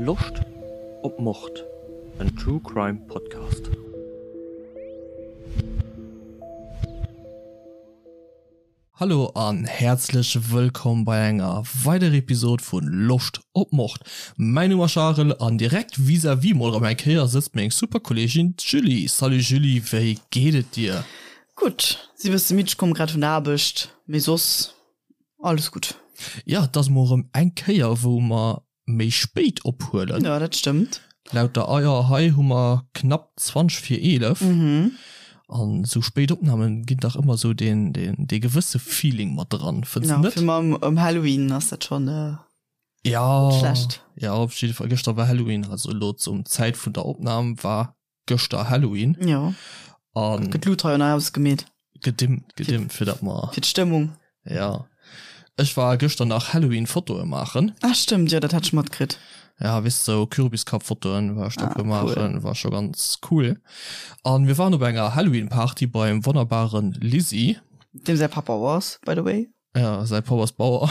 Loscht op Mord? En True Crime Podcast. Hallo an häerzlech wëllkomm bei enger weiderer Episode vun Loscht op Mord. Mäin Numm ass Charel an direkt vis-à-vis mol erëm eng Kéier sëtzt meng super Kolleegin d'Julie. Salut Julie, wéi geet et dir? Gutt, si bësse midd, ech komme grad vun der Aarbecht, mee soss Alles gutt. Jo, et ass mol erëm eng Kéier, wou mer méi spéit ophuelen. Jo, dat stëmmt. Laut der Eier hei hu mer knapp 20 vir 11. An esou spéit Opnamen ginn dach ëmmer esou deen, deen, dee gewësse Feeling mat dran, fënns de net? Jo, fir mer ëm Halloween ass dat schonn net schlecht. Jo, op jidde Fall, gëschter war Halloween, also elo zum Zäit vun der Opnam war gëschter Halloween. Jo. An. Gëtt Luut hei an hei ausgemeet. Gedimmt, gedimmt, fir dat mer. Fir d'Stëmmung. Ja. Ech war gëschter nach Halloween Fotoe maachen. Ah stëmmt, jo dat hat ech matkritt. Ja, weess sou Kürbiskapp-Fotoen war ech da puer maachen, war scho ganz cool. An mir waren op enger Halloween Party beim wonnerbaren Lizzy. Deem säi Papp Bauer ass, by the way. Ja, säi Papp ass Bauer.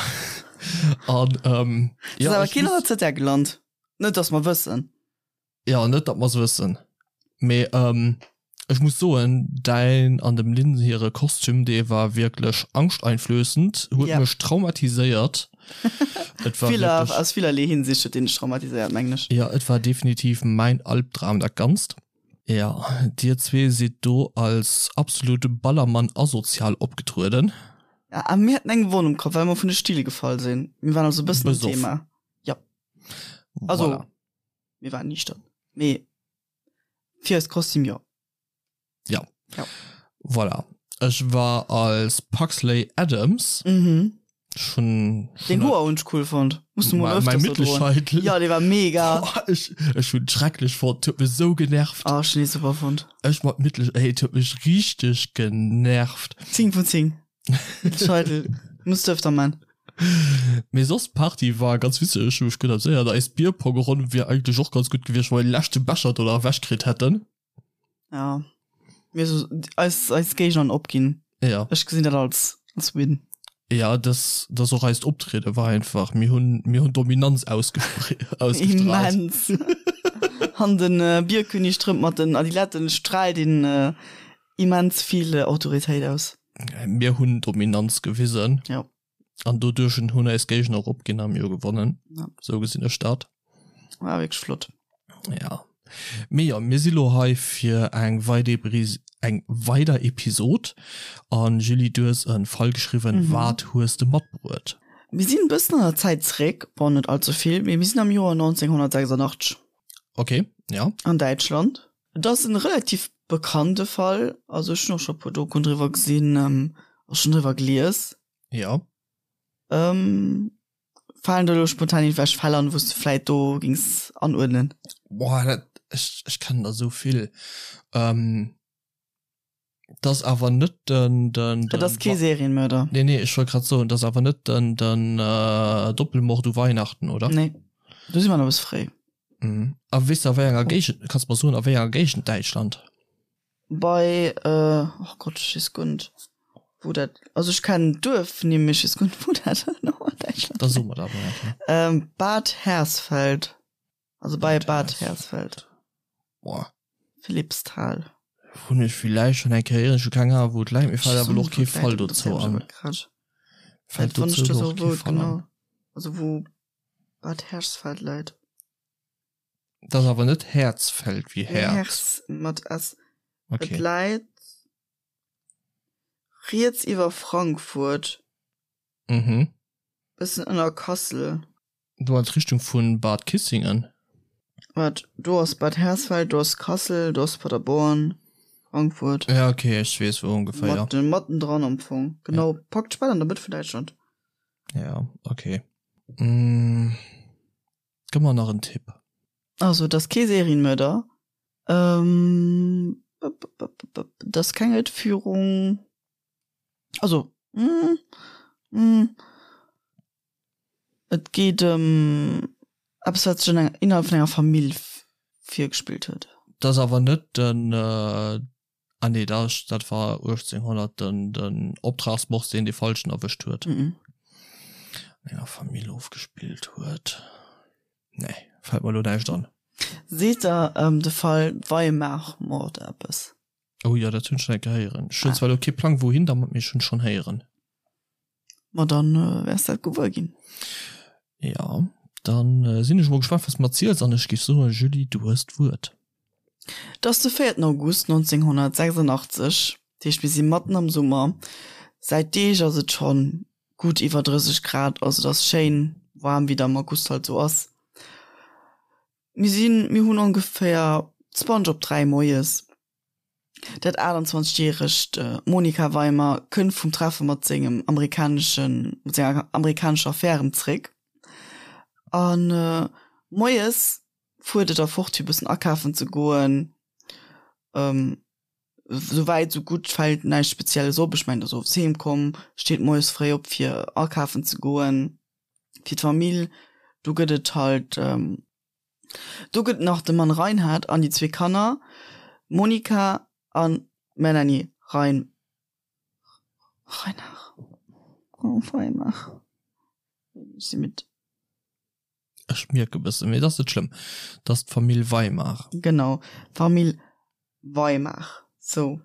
An ähm, ja. Ass awer keen an der ZR gelant. Net dass mer wëssen. Jo, net datt mer se wëssen, mee ech muss soen, däin an dem Lynn hire Kostüm, dee war wierklech angschteinflößend, huet mech traumatiséiert. Et war wierklech. Aus villerlee Hinsicht huet deen dech traumatiséiert, mengen ech. Jo, et war definitiv mäin Albdram, dat Ganzt. Jo, dir zwee sidd do als absolut Ballermann-asozial opgetrueden. Ja, a mir haten eng Wonn um Kapp, well mer vun de Still gefall sinn. Mir waren also e bëssen am Thema. Jo. Also. Voilà. Mir waren niichtern. Mee fir eist Kostüm jo. Ja. Ja. Voilà. Ech war als Pugsley Addams. Mhm. Schon, schon Den Hoer hunn ech cool fonnt. Muss du mol öfters so droen. Ja, dee war mega. Boah, ech, ech hunn schrecklech fonnt. Huet mech sou genervt. Ah, ech hunn dee super fonnt. Ech mat Mittel, ey, et huet mech richteg genervt. 10 vun 10. Mittelscheitel. Muss du öfter man. Mee soss d'Party war ganz witzeg, ech hu mech gutt amuséiert. Eis Bierpongronn wier eigentlech och ganz gutt gewiescht, wa mir de leschte Becher do nach ewech kritt hätten. Ja, mir so eis, eis Géigner an opginn. Ja. Ech gesinn dat als, als Win. Ja, das, das och eist Optriede war einfach, mir hunn, mir hunn Dominanz ausgespr ausgestrahlt. Immens. An den äh, Bierkönig trëmmt mat den Adiletten, straalt een äh, immens vill Autoritéit aus. Mir hunn Dominanz gewisen. Ja. An doduerch hunn eis Géigner och opginn a mir hu gewonnen. Ja. Sou gesinn ech dat. War wierklech flott. Ja. Mee jo, mir si lo hei fir eng weider eng weider Episod. An Julie, du hues e Fall geschriwwen. Mhm. Wat hues de matbruet? Mir sinn e bëssen an der Zäit zeréck, bon net allze vill, mee mir sinn am Joer 1986. Okay, ja. An Däitschland. Et ass en relativ bekannte Fall, also ech hunn och scho puer Dokuen driwwer gesinn a schonn driwwer gelies. Jo. Falen der elo spontan iergendwelch Fäll an, wou s de vläit do géings anuerdnen? Boah, dat, ech, ech kennen der esou vill. Et ass awer net den, den, den. Et ass kee Serienmörder. Nee, nee, ech wollt grad soen, et ass awer net den, den Doppelmord u Weihnachten, oder? Nee, do si mer nach e bësse fréi. Mhm. A weess de a wéi enger Géigend, kanns de mer soen a wéi enger Géigend Däitschland? Bei, oh Gott, ech weess guer net wou dat, also ech kennen d'Duerf-Nimm, mee ech weess guer net wou dat genau an Däitschland Da so mer dat mol eng Kéier. Bad Hersfeld, also bei Bad Hersfeld. Boah. Philippsthal. Hunn ech villäicht schonn eng Kéier héieren, ech hu keng Ahnung wou et läit, mir fält awer elo och kee Fall dozou an. Fält dozou elo och kee Fall an. Also wou Bad Hersfeld läit. Dat ass awer net Häerzfeld wéi Häerz. Hers mat S. Okay. Et läit riets iwwer Frankfurt. Mhm. Bëssen ënner Kassel. Du an d'Richtung vun Bad Kissingen? Waart, do ass Bad Hersfeld, do ass Kassel, do ass Paderborn, Frankfurt. Ja, okay, ech weess wou ongeféier. Matten, mattendran am Fong. Genau, praktesch bal an der Mëtt vun Däitschland. Ja, okay. Mm, gëmm mer nach en Tipp. Also, et ass kee Serienmörder. Ähm, et ass keng Entführung. Also, mm, mm, et geet ëm eppes, wat sech an enger, innerhalb vun enger Famill virgespillt huet. Et ass awer net den, ah nee, dat, dat war 1800 den, den Optragsmord, deen dee Falschen erwëscht huet. Mm. An enger Famill ofgespillt huet. Nee. fält mer elo näischt an. Seet der de Fall Weimar-Mord eppes? Oh jo, dat hunn ech schon eng Kéier héieren. Ech hunn zwar elo kee Plang wouhin dermat, mee ech hunn schonn héieren. Ma dann wäers dat gewuer ginn. Jo, dann sinn ech mol gespannt wat s de mer erziels an ech géif soen, Julie, du hues d'Wuert. Et ass de véierten August 1986, dat heescht mir si matten am Summer. Säit Deeg ass et schonn gutt iwwer 30 Grad, also et ass schéin waarm, wéi et am August halt esou ass. Mir sinn, mir hunn ongeféier 20 op 3 moies. Dat 28 järegt Monika Weimer kënnt vum Treffe mat sengem amerikaneschen, mat senger amerikanescher Affär erëm zréck. An moies fuert et da fort fir bëssen akafen ze goen. Sou wäit sou gutt, fält näischt Spezielles op. Ech mengen, et ass owes heem komm, steet moies fréi op fir akafen ze goen fir d'Famill. Do gëtt et halt. Do gëtt nach de Mann Reinhard an déi zwee Kanner Monika a Melanie Rein Reinhard oh Weimar ech si midd. Ech mierke bëssen, mee et ass net schlëmm. Et ass d'Famill Weimar. Genau, d'Famill Weimar. Sou.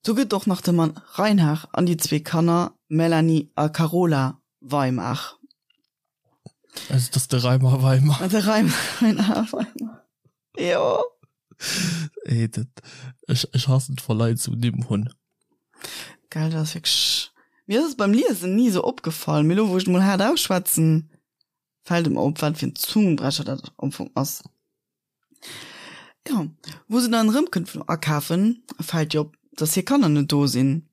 Do gëtt och nach de Mann Reinhard an déi zwee Kanner Melanie a Carola Weimar. Also das de Reimer Weimer. De Reimer Weimer. Jo. Ey, dat, ech, ech hassen et, wa Leit esou Nimm hunn. Gell, dat ass wierklech. Mir ass et beim Liesen ni esou opgefall, mee elo wou ech et mol haart ausschwätzen, fält et mer op, wat fir en Zungenbrecher dat am Fong ass. Jo, wou se dann erëmkënnt vum Akafen, fält ihr op, dass hir Kanner net do sinn.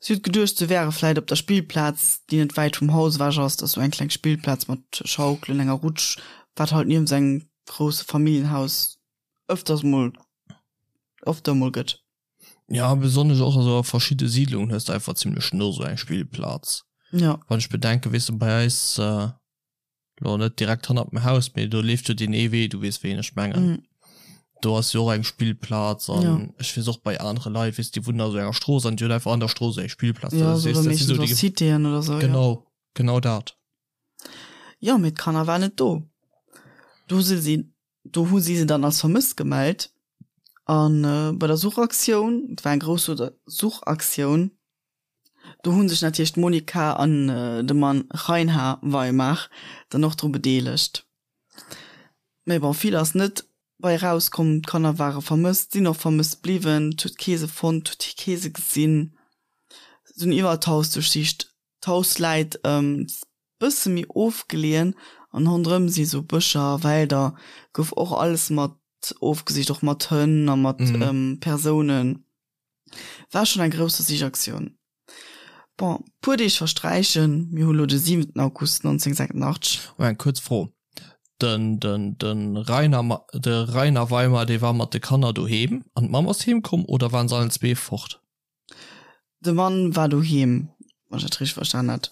Si huet geduecht, se wäre vläit op der Spillplaz, déi net wäit vum Haus ewech ass. Dat ass sou eng kleng Spillplaz mat Schaukelen, enger Rutsch, wat halt niewent engem grousse Familljenhaus ëfters mol, öfter mol gëtt. Ja, besonnesch och also a verschidde Siidlungen hues de einfach zimlech no sou eng Spillplaz. Ja. Wann ech bedenken, weess de, bei eis, Lo net direkt hannert dem Haus, mee do leeft jo deen ee Wee, du weess wéi een ech mengen. Mm. Do ass jo och eng Spillplaz an ja. ech weess och bei anere Leit, weess déi wunnen a sou enger Strooss an déi hunn einfach an der Strooss eng Spillplaz. Ja, so, weess, dat so déi Citéen oder so. Genau, ja. genau dat. Ja, mee d'Kanner waren net do. Do si si, do hu si se dann als vermësst gemellt. An äh, bei der Suchaktioun, et war eng grouss Suchaktioun, Do hu sech natierlech d'Monika an de Mann Reinhard Weimar dann och dru bedeelegt. Mee bon, vill ass net bei eraus komm. D'Kanner ware vermësst, sinn och vermësst bliwwen. Et huet kee se fonnt, et huet kee se gesinn. Se hunn iwwerall d'Haus duerchsicht. D'Haus läit e bësse méi ofgeleeën an ronderëm si sou Bëscher, Wälder. Gouf och alles mat ofgesicht, och mat Hënn a mat Persounen. War schon eng grousse Sichaktioun. Bon, puer Deeg versträichen, mir hu lo de 7 August 1986. Oh, eng kuerz Fro, Den, den, den Rainer, de Rainer Weimer, dee war mat de Kanner doheem an d'Mamm ass heem komm oder waren se allen zwee fort? De Mann war doheem, wann ech dat richteg verstan hat.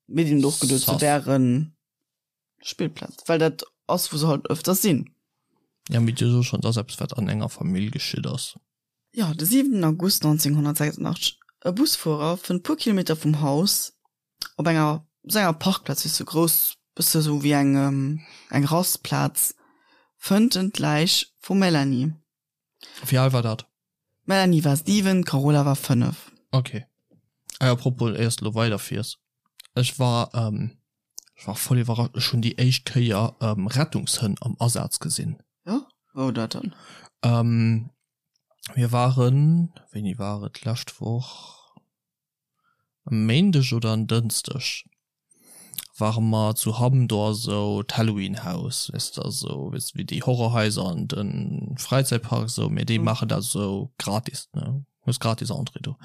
Mir hunn och geduet, se wären. Spillplaz, well dat ass wou se halt öfters sinn. Ja, mee dir sot schon, et ass eppes wat an enger Famill geschitt ass. Jo, de 7 August 1986, e Busfuerer fënnt puer Kilometer vum Haus op enger sou enger Parkplaz, wéi sou grouss, bësse sou wéi eng eng Rastplaz, fënnt en d'Läich vum Melanie. Wéi al war dat? D'Melanie war 7, d'Carola war 5. Ok. Ah, apropos, éiers de lo weiderfiers, ech war, ech war voll iwwerrascht, ech hunn déi éischt Kéier Rettungshënn am Asaz gesinn. Jo? Wou dat dann? Mir waren, wéini war et, d'lescht Woch? E Méindeg oder en Dënschdeg ware mer zu Hamm, do ass esou d'Halloween House, weess de, esou weess de wéi déi Horrorhaiser an de Fräizäitpark esou, mee déi maachen dat esou gratis, ne, hues gratis Entrée do.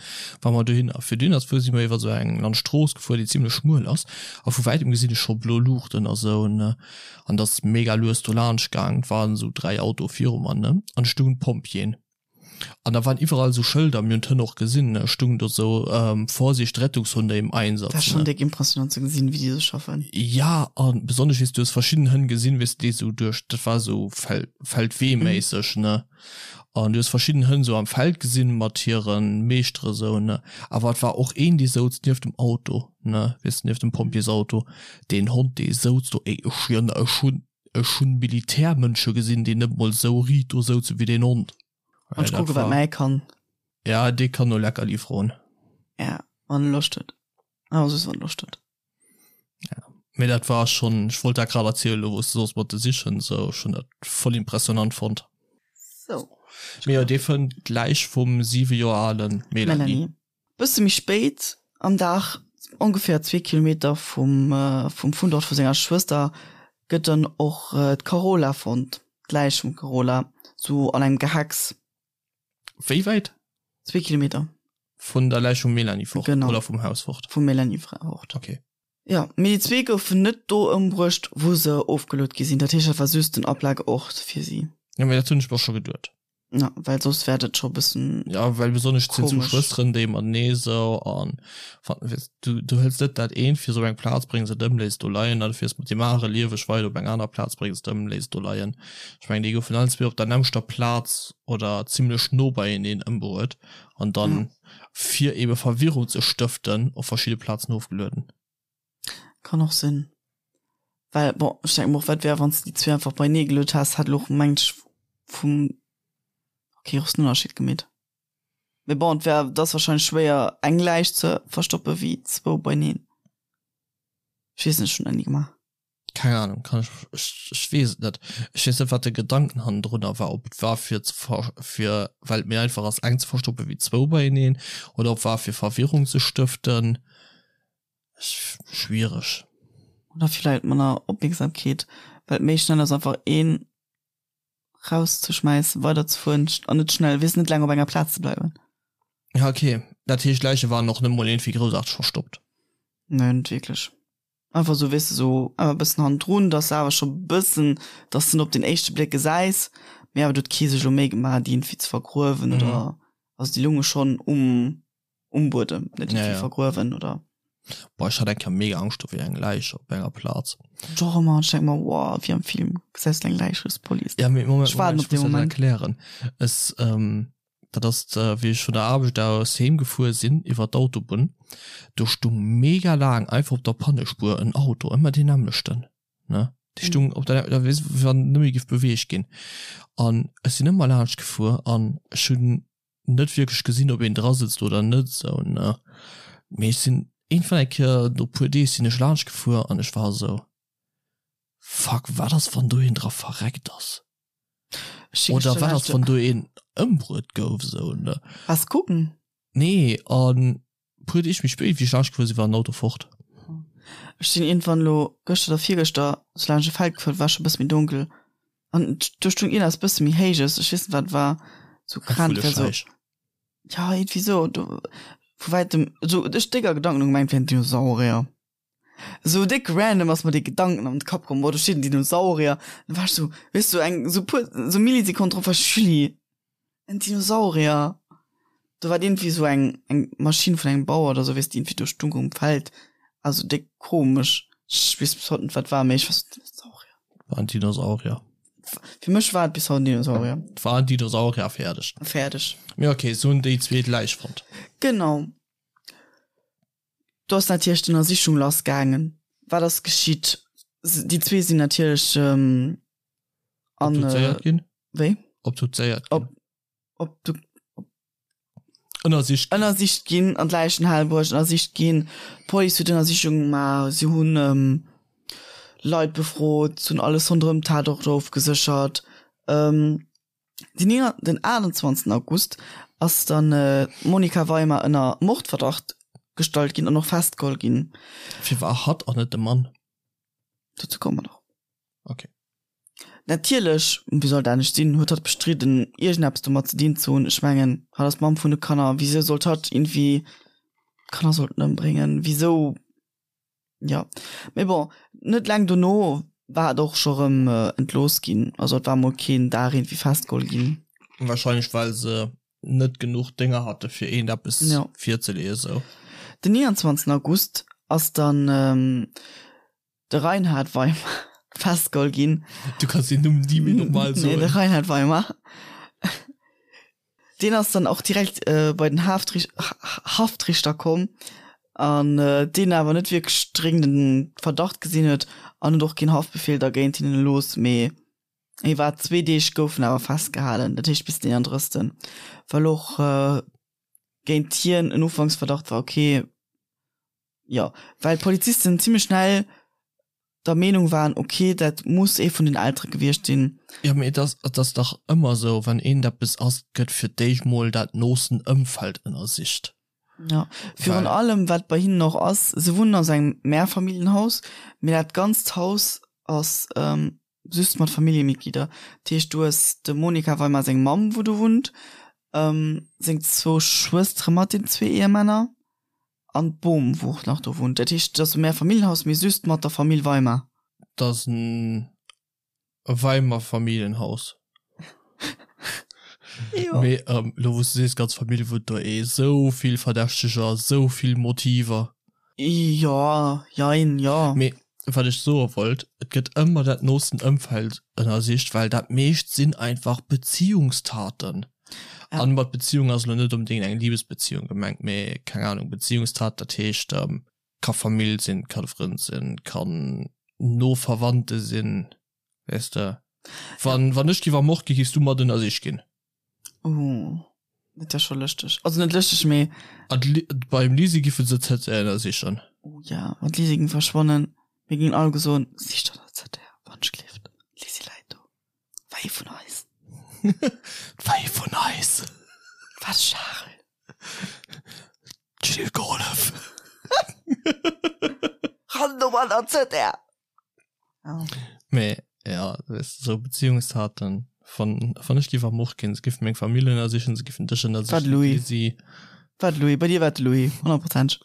Ware mer dohin a fir dohinner ze fuere si mer iwwer esou eng Landstrooss gefuer, déi zimlech schmuel ass a vu wäitem gesinn ech scho blo Luuchten a sou, ne, an et ass mega lues do laanscht gaang, et waren esou 3 Autoe viru mer, ne, an et stoungen d'Pompjeeën. An da waren iwwerall esou Schëlder, mir hunn d'Hënn och gesinn, ne, stung do sou, Vorsicht, Rettungshunde im Einsatz, Dat ass schonn ne. déck impressionant ze gesinn, wéi déi esou schaffen. Ja, a besonnesch, weess du hues verschidden Hënn gesinn, weess de, déi esou duerch, dat war esou Fel-, Feldwee-méisseg, ne, an du hues verschidden Hënn esou am Feld gesinn mat hire Meeschtere sou, ne, awer et war och een, dee souz nieft dem Auto, ne, weess de, nieft dem Pompjeesauto, deen Hond, dee souz do, ey, ech schwieren der, ech hunn. Ech hunn Militärmënsche gesinn, déi net mol esou riit do souze wéi deen Hond. An ech kucke wat mäi kann. Ja, dee kann no Leckerli froen. Ja, wann e Loscht huet. Awer soss wann e Loscht huet. Ja, mee dat war schonn, ech wollt dat grad erzielen, elo wou s de soss mat de Sichen esou, ech hunn dat voll impressionant fonnt. Sou. Mee jo, dee fënnt d'Läich vum 7 Joer ale Melanie. Melanie. Bësse méi spéit am Dag, ongeféier zwee Kilometer vum vum Fundort vu senger Schwëster, gëtt dann och d'Carola fonnt, d'Läich vum Carola, sou an engem Gehacks. Wéi wäit? Zwee Kilometer. Vun der Läich vum Melanie fort? Genau. Oder vum Haus fort? Vum Melanie fort. Okay. Jo, mee déi zwee goufen net do ëmbruecht, wou se ofgeluet gi sinn. Dat heescht, dat war just den Aplageort fir si. Jo, mee dat hunn ech mer scho geduet. Ja, well soss wär dat scho bëssen. Ja, well besonnesch et sinn zwou Schwësteren, déi matenee sou an weess du, du hëls net dat eent fir sou eng Plaz, bréngs et ëm, léiss et do leien, an du fiers mat deem anere lieweg weider op eng aner Plaz, bréngs et ëm, léiss et do leien. Ech mengen, déi goufen allen zwee op der nämmlechter Plaz oder zimlech no beieneen ëmbruet an dann, fir ebe Verwirrung ze stëften, op verschidde Plazen ofgelueden. Kann och sinn. Well, bon, ech denke mer och, wat wär, wann s de déi zwee einfach beienee geluet häss, hätt elo och, mengt ech, vum, okay, grossen Ënnerscheed gemeet. Mee bon, et wär, et ass wahrscheinlech schwéier, eng Läich ze verstoppe wéi zwou beieneen. Ech weess net, ech hunn dat ni gemaach. Keng Ahnung, kann ech, ech, ech weess et net. Ech weess net, wat de Gedanken hannendrunner war, ob et war fir ze ver, fir, well et méi einfach ass, eng ze verstoppe wéi zwou beieneen, oder ob war fir Verwirrung ze stëften. Schwiereg. Oder villäit manner Opmierksamkeet, well et méi schnell ass einfach een rauszeschmäissen, weiderzefueren an net schnell, weess net laang op enger Plaz ze bleiwen. Ja ok, dat heescht d'Läiche waren och net mol iergendwéi groussaarteg verstoppt? Nee, net wierklech. Einfach sou, weess de, sou awer e bëssen hannendrun, dass de awer scho bëssen, dass de net op den éischte Bléck gesäis, mee awer do huet kee sech elo Méi gemaach déi iergendwéi ze vergruewen oder, also déi lounge schonn um um Buedem, net ja, ja. vergruewen oder. Boah, ech hat eng Kéier mega Angscht do wéi eng Läich op enger Plaz. Doch ëmmer, ech denk mer, wow, wéi am Film, gesäis du eng Läich, rufs d'Police. Ja, mee Moment, Ech waarden Moment, op ech dee muss dat Moment. erklären. Es, ähm, dat ass, wéi ech vun der Aarbecht aus heem gefuer sinn, iwwer d'Autobunn, do stung mega laang einfach op der Pannespuer en Auto, ëmmer deen nämmlechten, ne? Dee stung op der, da weess, wéi wann en net méi géif beweegt ginn. An ech sinn ëmmer laanscht gefuer an ech hunn net wierklech gesinn ob een dra sëtzt oder net esou ne, mee ech sinn iergendwann eng Kéier no puer Deeg sinn ech laanscht gefuer an ech war esou fuck wat ass wann do een dra verreckt ass oder wat ass wann do een ëmbruet gouf esou ne. Waars kucken? Nee an Puer Deeg méi spéit, wéi ech laanscht gefuer sinn, war den Auto fort. Ech sinn iergendwann elo gëschter oder virgëschter sou laanscht e Feld gefuer, et war scho e bësse méi donkel an do stoung iergendeppes bësse méi Héijes, ech weess net wat et war, sou Eng krank wär sou, Vullescheich. ja iergendwéi sou, do vu wäitem sou ech déck a Gedanken hu gemengt, et wär en Dinosaurier. Sou déck random ass mer dee Gedanken an de Kapp komm, boah do steet en Dinosaurier, dann war ech sou, weess du, eng sou puer sou Millisekonnen drop war ech, Julie, en Dinosaurier. Do war iergendwéi sou eng eng Maschinn vun engem Bauer oder sou, weess de, iergendwéi do stung um Feld, also déck komesch, ech weess bis haut net wat war, mee ech war sou, Dinosaurier. War en Dinosaurier. Fir mech war et bis haut en Dinosaurier. Et war en Dinosaurier, fäerdeg. Fäerdeg. Mee okay, se hunn déi zweet Läich fonnt. Genau. Do ass natierlech d'Ënnersichung lass gaangen. Wat ass geschitt? Déi zwee sinn natierlech an. Obduzéiert ginn? Wéi? Obduzéiert ginn. Ob, ob, Ënnersicht ginn. Ënnersicht ginn, an d'Läichenhal bruecht, ënnersicht ginn. D'Police huet Ënnersichunge gemaach, si hunn Leit befrot, si hunn alles ronderëm d'Tatort ofgeséchert. Den den 28 August ass dann d'Monica Weimer ënner Mordverdacht gestallt ginn an och festgeholl ginn. Firwat hatt an net de Mann? Dozou komme mer nach. Ok. Natierlech, wéi soll et anescht sinn, huet hatt bestridden, iergendeppes domat ze dinn ze hunn. Ech mengen, hatt ass d'Mamm vun de Kanner, wisou sollt hatt iergendwéi d'Kanner sollten ëmbréngen? Wisou? Jo, mee bon, net laang dono war et och scho rëm entlooss ginn. Also et war mol keen Dag iergendwéi festgeholl ginn. Wahrscheinlech well se net genuch Dénger hate fir eent eppes Jo. virzeleeën esou. Den 29 August ass dann de Reinhard Weimer festgeholl ginn. Du kanns deen Numm ni méi normal Nee, de soen. Reinhard Weimer. Deen ass dann och direkt bei den Haftrichter komm. An deen awer net wierklech dréngenden Verdacht gesinn huet an huet och keen Haftbefehl da géint hinnen erlooss. Mee hie war zwee Deeg gouf en awer festgehalen, dat heescht bis den 31. Well och géint hien en Ufanksverdacht war, okay, jo, well d'Polizisten zimmlech schnell der Meenung waren, okay, dat muss ee vun den Eltere gewiescht sinn. Jo, mee et ass, et ass dach ëmmer esou, wann eent eppes ass, gëtt fir d'éischt mol dat noosten Ëmfeld ënnersicht. Jo, virun allem wat bei hinnen och ass, se wunnen a sou engem Mehrfamilienhaus, mee dat ganzt Haus ass just mat Familljemitglieder. Dat heescht, du hues dem Monika Weimar seng Mamm, wou do wunnt, seng zwou Schwëstere mat den zwee Ehemänner an d'Bom, wou och nach do wunnt. Dat heescht, et ass e Mehrfamilienhaus, mee just mat der Famill Weimar. Dat ass en Weimer Familljenhaus. Jo. Mee elo wou s de sees, ganz Famill wunnt do, ee sou vill Verdächteger, sou vill Motiver. Jo, jein, jo. Mee wat ech soe wollt, et gëtt ëmmer dat noosten Ëmfeld ënnersicht, well dat meescht sinn einfach Beziehungstaten. Ja. An mat Beziehung ass elo net onbedéngt eng Libesbeziehung gemengt, mee keng Ahnung, Beziehungstat, dat heescht, ka Famill sinn, ka de Frënd sinn, kann no Verwandte sinn, weess de. Wann, wann ech giff ermort ginn, giffs du mat ënnersicht ginn? Oh, dat wär scho lëschteg. Also net lëschteg, mee. An beim Lisi giffen se d'ZR ënnersichen. Oh ja, wann d'Lisi ging verschwannen, mir gingen alleguer soen, Sicht an der ZR, wann ech gleeft, d'Lisi läit do. War ee vun eis. War ee vun eis. War de Charel. D'Jill gehollef. Ran do an der ZR. Ja. Mee ja, weess de, sou Beziehungstaten, wann, wann ech géif ermort ginn, se géifen meng Famill ënnersichen, se géifen dech ënnersichen, War de Louis. d'Lisi. War de Louis. Bei dir war et de Louis, honnertprozenteg.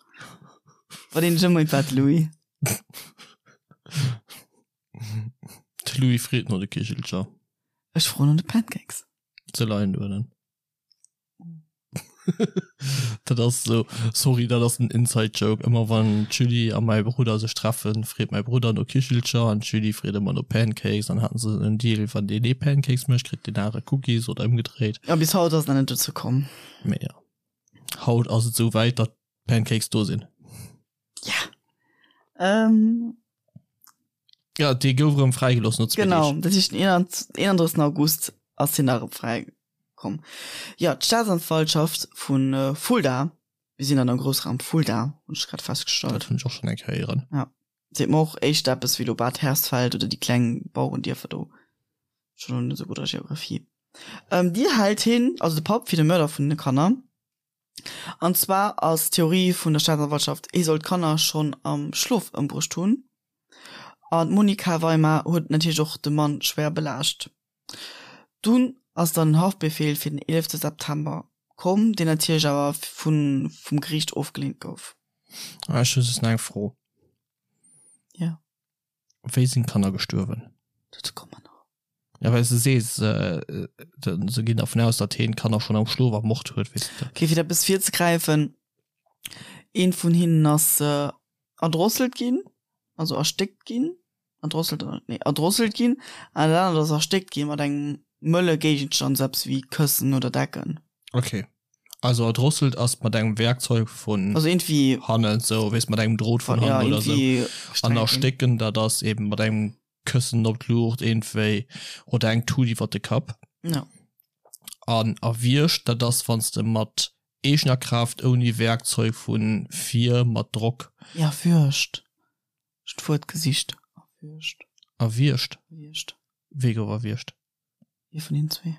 Bei deem Jëmmer war et de Louis. De Louis freet no de Kichelcher. Ech froen no de Pancakes. Se leien uewen. Dat ass sou, sorry, dat ass en Inside Joke. Ëmmer wann d'Julie a mäi Brudder sech treffen, freet mäi Brudder no Kichelcher an d'Julie freet ëmmer no Pancakes. Dann haten se en Deal, wann deen ee Pancakes mécht, kritt deen anere Cookies oder ëmgedréit. Ja, bis haut ass et nach net dozou komm. Mee jo, haut ass et sou wäit, datt d'Pancakes do sinn. Ja. Ähm. Ja, dee gouf erëm fräigelooss no zwee Genau, dat heescht den 31. August ass hien nach erëm fräikomm. Ja, d'Staatsanwaltschaft vu Fulda, mir sinn an am Groussraum Fulda, hunn ech grad festgestallt. Dat hunn ech och schonn eng Kéier héieren. Ja, seet mer och éischter eppes wéi elo Bad Hersfeld oder déi kleng Bauerendierfer do. Ech hunn elo net esou gutt a Geografie. Ähm, déi hält hien, also de Papp, fir de Mörder vun de Kanner. An zwar ass d'Theorie vun der Staatsanwaltschaft, hie soll d'Kanner schonn am Schlof ëmbruecht hunn. An d'Monika Weimar huet natierlech och de Mann schwéier belaascht. Dunn ass dann en Haftbefeel fir den 11 September komm, deen natierlech awer vum Geriicht ofgeleent gouf. Ech hu just nach eng Fro. Jo. Wéi sinn d'Kanner gestuerwen? Dozou komme mer nach. Ja, well s de sees, se ginn dervun aus, datt heen d'Kanner schonn am Schlof ermort huet, weess de. Okay, fir dat eppes virzegräifen, Eent vun hinnen ass erdrosselt ginn, also erstéckt ginn, erdrosselt oder, nee, erdrosselt ginn, an dat anert ass erstéckt gi mat engem mëlle Géigenstand, sou eppes wéi Këssen oder Decken. Okay, also erdrosselt ass mat engem Werkzeug vun also irgendwie hannen, sou, weess, mat engem Drot vun hannen oder sou. An erstécken, dat ass eben mat engem Këssen op d'Luucht iergendwéi oder eng Tut iwwer de Kapp. Ja. An erwiergt, dat ass wann s de mat eegener Kraaft ouni Werkzeug vu vir mat Drock. Erwürgt. Ech d'Wuert gesicht. Erwürgt. Erwiergt? Erwiergt. Wee gouf erwiergt? Ee vun hinnen zwee.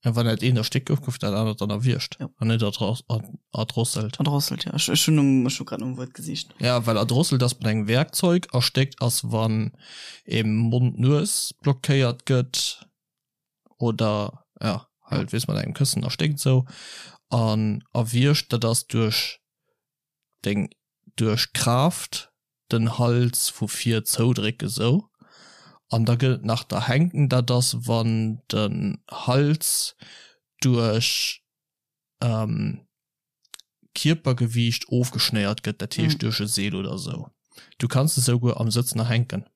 Ja, wann dat eent erstéckt gouf, gouf dat anert dann erwiergt Jo. an net erdrosselt. Erdrosselt, ja. Ech, ech hunn nom, ech hu grad nom Wuert gesicht. Ja, well erdrosselt ass mat engem Werkzeug, erstéckt ass wann ee Mond-Nues blockéiert gëtt oder ja, halt weess mat engem Këssen erstéckt esou. An erwiergt, dat ass duerch deng duerch Kraaft den Hals vu vir zoudrécken sou an da gëtt et nach d'Erhänken, dat ass wann den Hals duerch Kierpergewiicht ofgeschnéiert gëtt, dat heescht duerch e Seel oder sou. Du kanns de souguer am Sëtzen erhänken.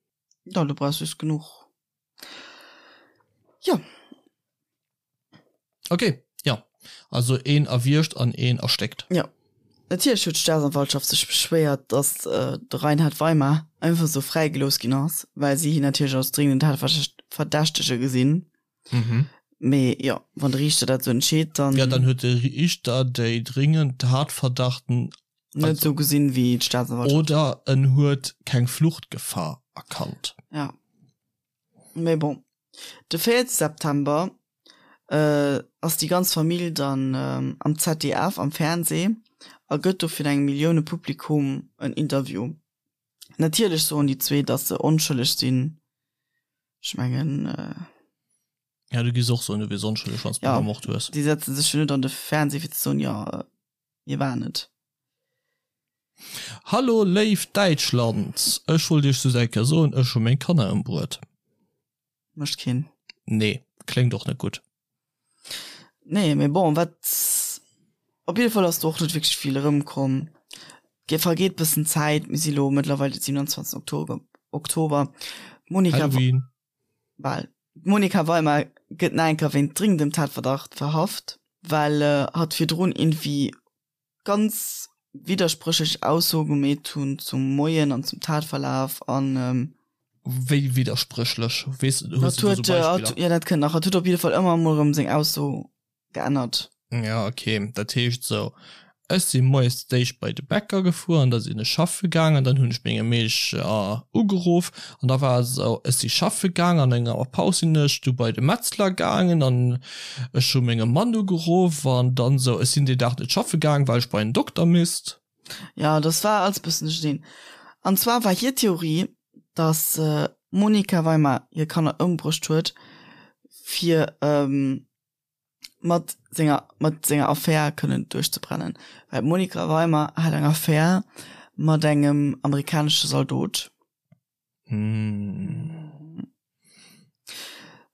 Jo, du brauchs just genuch, jo. Ok, jo. Also een erwiergt an een erstéckt. Jo. Natierlech huet d'Staatsanwaltschaft sech beschwéiert, datt de Reinhard Weimar einfach esou fräigelooss ginn ass, well si hien natierlech als dringenden Tatverdächtege gesinn. Mee jo, wann de Riichter dat esou entscheet, dann. Jo, dann huet de Riichter déi dringend Tatverdachten. Net esou gesinn, wéi d'Staatsanwaltschaft. Oder en huet keng Fluchtgefahr erkannt. Ja. Mee bon, de 4 September ass déi ganz Famill dann am ZDF am Fernsee a gëtt do fir engem Milliounepublikum en Interview. Natierlech soen déi zwee, datt se onschëlleg sinn. Ech mengen. Ja, du giss och soen, du wiers onschëlleg, wann s du gemort hues. Déi setze sech jo net an de Fernsee fir ze soen, jo, mir waren et. Hallo léift Däitschland, ech wollt iech just eng Kéier soen, ech hu meng Kanner ëmbruet. Mécht keen. Nee, kléngt och net gutt. Nee, mee bon, wat, op jidde Fall ass do och net wierklech vill erëmkomm. Et vergeet bëssen Zäit, mir si lo mëttlerweil de 27 Oktober, Oktober. D'Monica, Halloween. bal, d'Monica Weimar gëtt nach eng Kéier wéint dringendem Tatverdacht verhaft, well hatt virdrun iergendwéi ganz widderspréchlech Aussoe gemeet hunn zum Moien an zum Tatverlaf an. Wéi widderspréchlech? Weess, hues du do sou Beispiller? Jo, dat kënnt nach. Hatt huet op jidde Fall ëmmer emol erëm seng Ausso geännert. Ja, okay. Dat heescht esou, ech si moies d'éischt bei de Bäcker gefuer an da sinn ech schaffe gaang an dann hunn ech menge Meesch ugeruff an da war et esou, ech si schaffe gaang an enger Paus sinn ech du bei de Metzler gaangen an Ech hu mengem Mann ugeruff an dann sou, ech sinn deen Dag net schaffe gaang, well ech bei en Dokter misst. Jo, dass war alles bëssen duercherneen. An zwar war hir Theorie, dass d'Monika Weimar hir Kanner ëmbruecht huet, fir mat senger mat senger Affär kënnen duerchzebrennen. Well d'Monika Weimar hat eng Affär mat engem amerikanesche Zaldot.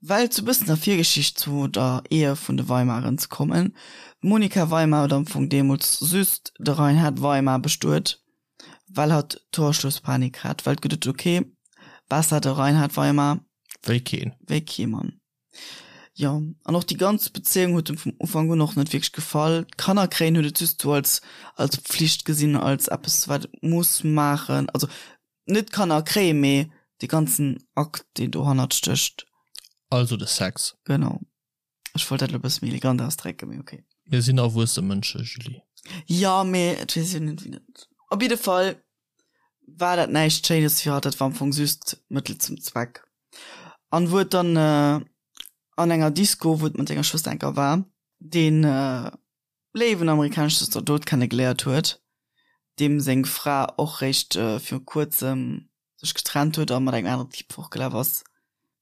Well zu bëssen der Virgeschicht zu der Ehe vun de Weimaren ze kommen, D'Monika Weimar huet am Fong deemools just de Reinhard Weimar bestuet, well hatt Torschlusspanik hat, well geduet huet, ok, besser de Reinhard Weimar Wéi keen. wéi kee Mann. Jo, an och déi ganz Bezéiung huet em vum Ufank un och net wierklech gefall. D'Kanner kréien huet et just sou als als Pflicht gesinn, als eppes wat et muss maachen, also Net d'Kanner kréien, mee dee ganzen Akt, deen dohannert stécht. Also de Sex. Genau. Ech wollt dat elo e bësse méi elegant ausdrécken, mee okay. Mir sinn erwuesse Mënsche, Julie. Jo, mee et weess een net, wéi dat. Op jidde Fall war dat näischt Schéines fir hatt, dat war am Fong just Mëttel zum Zweck. An wou et dann an enger Disco, wou et mat senger Schwëster enker war, deen léiwen amerikanesche Zaldot kenne geléiert huet, deem seng Fra och réischt viru kuerzem sech getrennt huet a mat engem aneren Typ fortgelaf ass,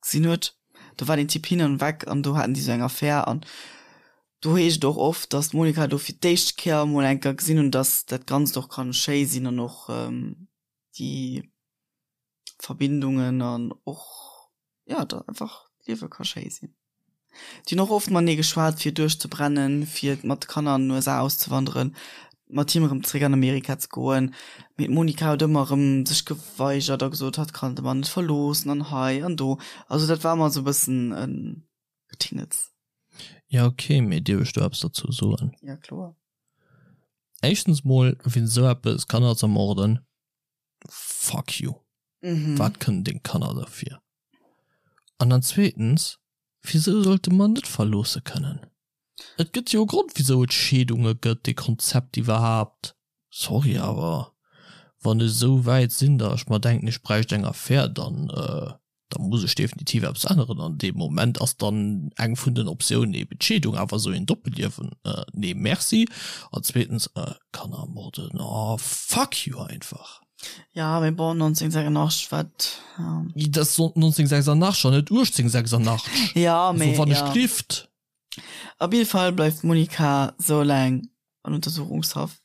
gesinn huet. Do war deen Typ hin an weg an do haten déi sou eng Affär an do heescht et och oft, dass d'Monica do fir d'éischt Kéier emol eng Kéier gesinn hunn, dass dat Ganzt och kann schéi sinn an och déi Verbindungen an och jo da einfach d'Liewe ka schéi sinn. Déi hunn och oft matenee geschwat fir duerchzebrennen, fir mat de Kanner an den USA auszewanderen, mat him erëm zeréck an Amerika ze goen. Mee d'Monica huet ëmmer erëm sech geweigert a gesot, hatt kann de Mann net verloossen an hei an do. Also dat war ëmmer esou e bëssen e Getingels. Ja ok, mee dierf ech do eppes dozou soen? Ja kloer. Éischtens mol, wien esou eppes, Kanner z'ermorden, fuck you. Mhm. Wat kënnen deng Kanner derfir? An dann zweetens, wisou sollte mer net verloosse kënnen? Et gëtt jo e Grond wisou et Scheedunge gëtt, dee Konzept iwwerhaapt. Sorry, awer wann ech esou wäit sinn, datt ech mer denken, ech bräicht eng Affär, dann da muss ech definitiv eppes änneren. An deem Moment ass dann eng vun den Optiounen eben d'Scheedung. Awer esou een Doppelliewen, nee merci. An zweetens, Kanner ermorden, oh fuck you einfach. Ja, mee bon, 1986 war et, ja. Dat ass 1986 an net 1886. Ja, mee, also wann ech glift. Op jidde Fall bleift d'Monica sou laang an Untersuchungshaft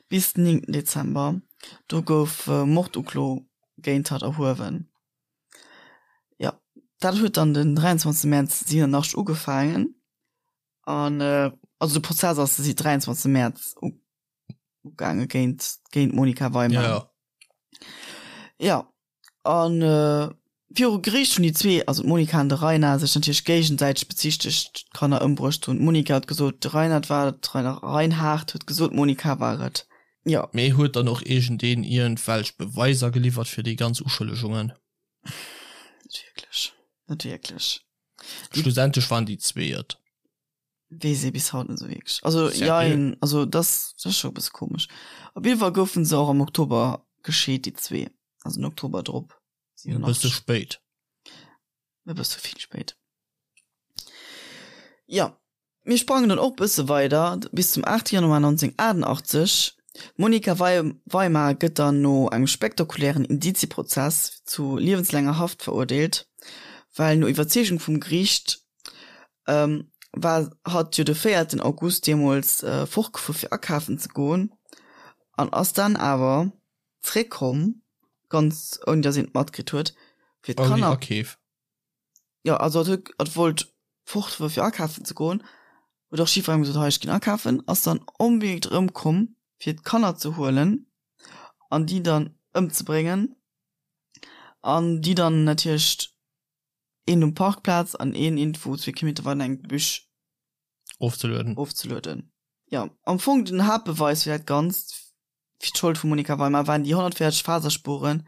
bis den 9 Dezember. Do gouf Morduklo géint hatt erhuewen. Jo, dat huet dann den 23 Mäerz 87 ugefaangen an also de Prozess ass de 23 Mäerz ugaange géint géint d'Monica Weimann. Ja. Ja an viru Geriicht hunn déi zwee, also d'Monica an de Rainer, sech natierlech géigesäiteg bezichtegt d'Kanner ëmbruecht ze hunn. D'Monica huet gesot, de Reinhard war et, de Reinhard huet gesot, d'Monica war et. Jo. Mee huet dann och iergendeen iergendwelch Beweiser geliwwert fir déi ganz Uschëllegungen? Net wierklech, net wierklech. Schlussendlech waren déi zwee et. Weess ee bis haut net esou wierklech. Also jein, also dat ass scho e bësse komesch. Op jidde Fall goufen se och am Oktober gescheet, déi zwee, also den Oktober drop. E bësse spéit. E bësse vill spéit. Jo, mir sprangen dann och bësse weider bis zum 8 Januar 1988. D'Monika Weimar gëtt dann no engem spektakulären Indizieprozess zu liewenslaanger Haft verurteelt, well no Iwwerzeegung vum Geriicht war hatt jo de véierten August deemools fortgefuer fir akafen ze goen an ass dann awer zréckkomm, ganz ouni datt een et matkritt huet, fir d'Kanner. Ouni Akeef. Jo, also hatt huet, hatt wollt fort fir akafen ze goen, huet och jiddwerengem gesot, hei ech ginn akafen, ass dann onbedéngt erëmkomm fir d'Kanner ze huelen an déi dann ëmzebréngen an déi dann natierlech een um Parkplaz an een iergendwou zwee Kilometer weider an engem Gebüsch ofzelueden. Ofzelueden. Jo, am Fong den Haaptbeweis fir dat Ganzt, fir d'Schold vum Monika Weimar, waren déi 140 Faserspuren,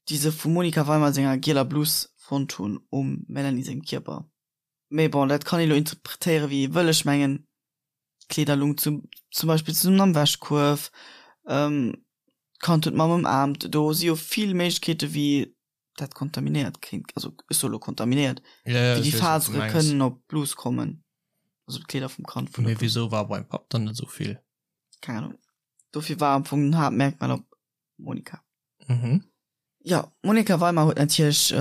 déi se vum Monika Weimar senger gieler Blus fonnt hunn um Melanie sengem Kierper. Mee bon, dat kann ee lo interpretéiere wéi ee wëll. Ech mengen, d'Kleeder lung zum zum Beispill zesummen am Wäschkuerf, d'Kand huet d'Mamm ëmaarmt. Do si jo vill Méiglechkeete wéi dat kontaminéiert kéint, also ech soe lo kontaminéiert, Ja, ja, wéi ech déi weess, wat du Fasere mengs. kënnen op d'Blus kommen, also op d'Kleeder vum Kand vun der Mee Blus. wisou war beim Papp dann net esou vill? Keng Ahnung. Dofir war am Fong den Haaptmerkmal op Monika. Mhm. Jo, d'Monika Weimar huet natierlech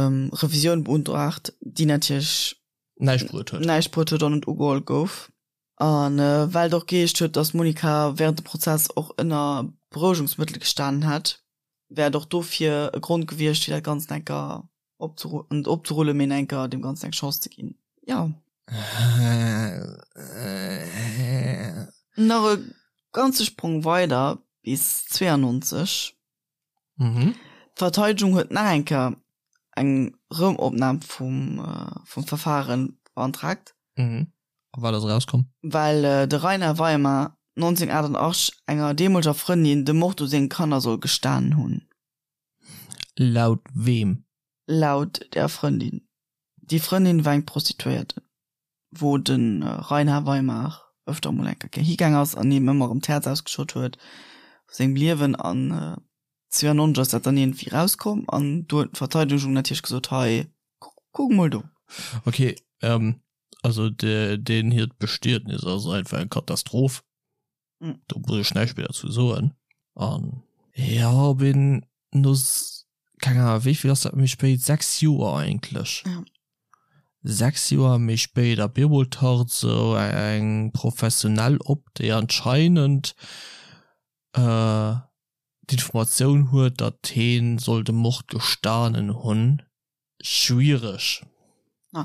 Revisioun beuntraagt, déi natierlech Näischt bruet huet. näischt bruet huet an net ugeholl gouf. A well et och geheescht huet, datt d'Monika wärend dem Prozess och ënner Berouegungsmëttel gestanen hätt, wär et och dofir e Grond gewiescht, fir dat Ganzt enker opzeru net opzerullen, mee enker deem Ganzen eng Chance ze ginn. Jo. Nach e ganze Sprong weider bis 92. D'Verteidegung huet nach eng Kéier eng Rëmopnam vum vum Verfare beantragt. A wat ass erauskomm? Well de Rainer Weimar 1988 enger deemoleger Frëndin de Mord u senge Kanner soll gestanen hunn. Laut weem? Laut der Frëndin. Déi Frëndin war eng Prostituéierte, wou de Rainer Weimar ëfter emol eng Kéier higaang ass an him ëmmer erëm d'Häerz ausgeschott huet vu sengem Liewen. An 92 ass dat dann iergendwéi erauskomm an do huet d'Verteidegung natierlech gesot, hei, kuck emol do. Ok, Also deen hiert Bestietnis ass einfach eng Katastroph. Do muss ech näischt méi derzou soen. An jo, op een no, keng Ahnung, wéi vill ass dat méi spéit, 6 Joer eigentlech, 6 Joer méi spéit a bemol taucht esou eng Professionell op, déi anscheinend d'Informatioun huet, datt heen soll de Mord gestanen hunn. Schwiereg,